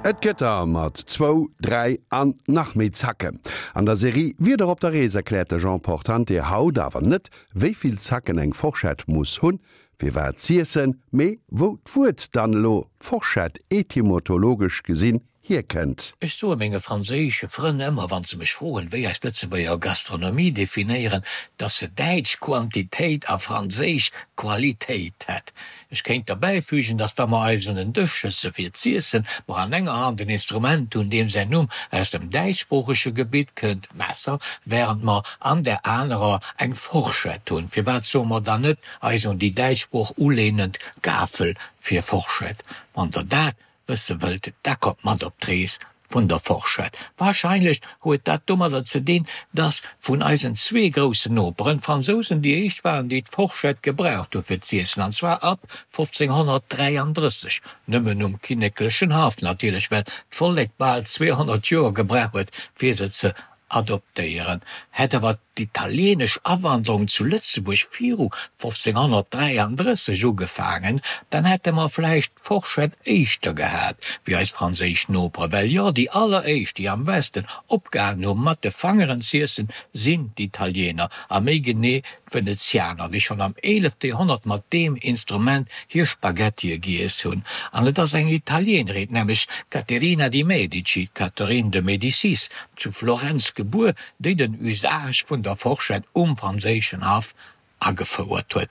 Et gëtt der mat zwou, dräi an nach méi Zacken. An der Serie Wieder op der Rees erkläert de Jean Portante haut awer net, wéi vill Zacken eng Forschett muss hunn, fir wat z'iessen, mee wou d'Wuert dann elo Forschett etymotologesch gesinn hierkënnt. Ech soe menge franséische Frënn ëmmer, wann se mech froen, wéi eis Lëtzebuerger Gastronomie definéieren, dass se däitsch Quantitéit a franséisch Qualitéit hätt. Ech kéint derbäifügen, dass wa mer eis un en Dësch sëtze fir z'iessen, mer an enger Hand en Instrument hunn, deem säin Numm aus dem däitschsproochege Gebitt kënnt, Messer, während mer an där anerer eng Forschett hunn. Firwat soe mer dann net eis un déi däitsch Sprooch ulehnend Gafel fir Forschett? Wann Der dat wësse wëllt, da kommt mat op d'Rees vun der Forschett. Wahrscheinlech huet dat domadder ze dinn, dass vun eisen zwee groussen Noperen, d'Fransousen déi éischt waren, déi d'Forschett gebraucht hu fir z'iessen, an zwar ab 1533, nëmmen um kinneklechen Haff natierlech, well d'Vollek bal 200 Joer gebraucht huet, fir se ze adoptéieren. Hätt awer d'italieenesch Awanderung zu Lëtzebuerg viru 1533 ugefaangen, dann hätte mer vläicht d'Forschett éischter gehat wéi eis franséisch Noperen. Well jo, déi alleréischt, déi am Westen opgehalen hu mat de Fangeren z'iessen, sinn d'Italiener, a méi genee d'Venezianer, déi schonn am eelefte Joerhonnert mat deem Instrument hir Spaghettie giess hunn. An et ass eng Italienerin, nämlech d'Caterina di Medici, Catherine de Médicis, zu Florenz gebuer, déi den Usage vun der Forschett um franséischen Haff agefouert huet.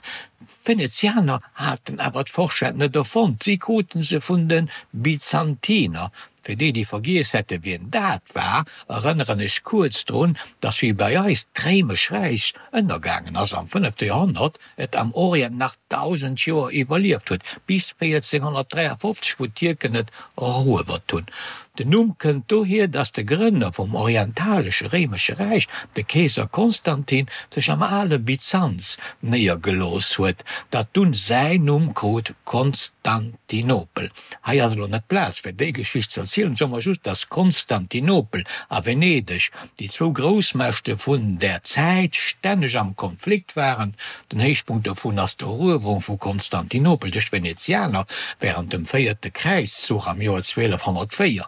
D'Venezianer haten awer d'Forschett net erfonnt, si kruten se vun de Byzantiner. Fir déi, déi vergiess hätte wien dat war, erënneren ech kuerz drun, datt wéi bei eis d'Réimesch Räich ënnergaangen ass am fënnefte Joerhonnert, et am Orient nach 1.000 Joer iwwerlieft huet, bis 1453, wou d'Tierken et eruewert hunn. Den Numm kënnt dohier, datt de Grënner vum orientalesche Réimesche Räich, de Keeser Konstantin, sech am ale Byzanz néiergelooss huet, dat dunn säin Numm krut, Konstantinopel. Hei ass elo net d'Plaz fir déi Geschicht ze erzielen, soe mer just, datt Konstantinopel a Venedeg, déi zwou Groussmächte vun där Zäit, stänneg am Konflikt waren. Den Héichpunkt dovun ass d'Eruewerung vu Konstantinopel duerch d'Venezianer wärend dem véierte Kräizzuch am Joer 1204.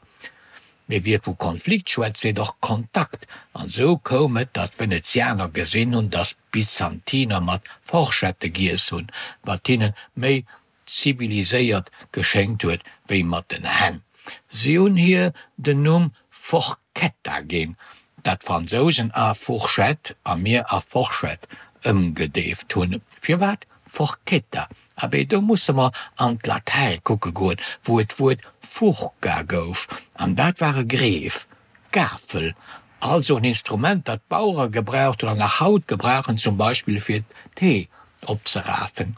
Mee wie vu Konflikt schwätzt, seet och Kontakt, an esou koum et, datt d'Venezianer gesinn hunn, datt d'Byzantiner mat Forschette giess hunn, wat hinne méi ziviliséiert geschéngt huet wéi mat den Hänn. Si hunn hir den Numm Forchetta ginn, dat d'Fransousen a Fourchette a mir a Forschett ëmgedeeft hunn. Firwat Forchetta? Abee, do musse mer an d'Latäi kucke goen, wou et d'Wuert furca gouf, an dat war e Greef, Gafel, also en Instrument, dat d'Bauere gebraucht hunn an nach haut gebrauchen, zum Beispill fir d'Hee opzerafen.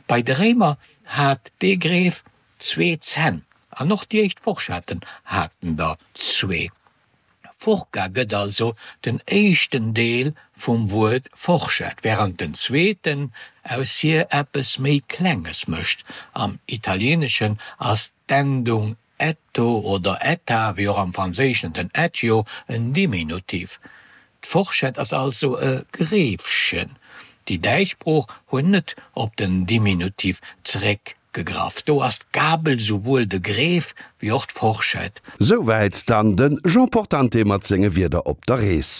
Bei de Réimer hat dee Greef zwee Zänn an och déi éischt Forschetten haten der zwee. Furca gëtt also den éischten Deel vum Wuert Forschett, wärend den zweeten aus hir eppes méi Klenges mécht. Am Italieeneschen ass d'Endung Etto oder etta, wéi och am Franséischen den etio, en Diminutiv. D'Forschett ass also e Greefchen. Déi däitsch Sprooch huet net op den Diminutiv zeréckgegraff. Do ass d'Gabel souwuel de Greef wéi och d'Forschett. Souwäit dann de Jean Portante mat senge Wierder op der Rees.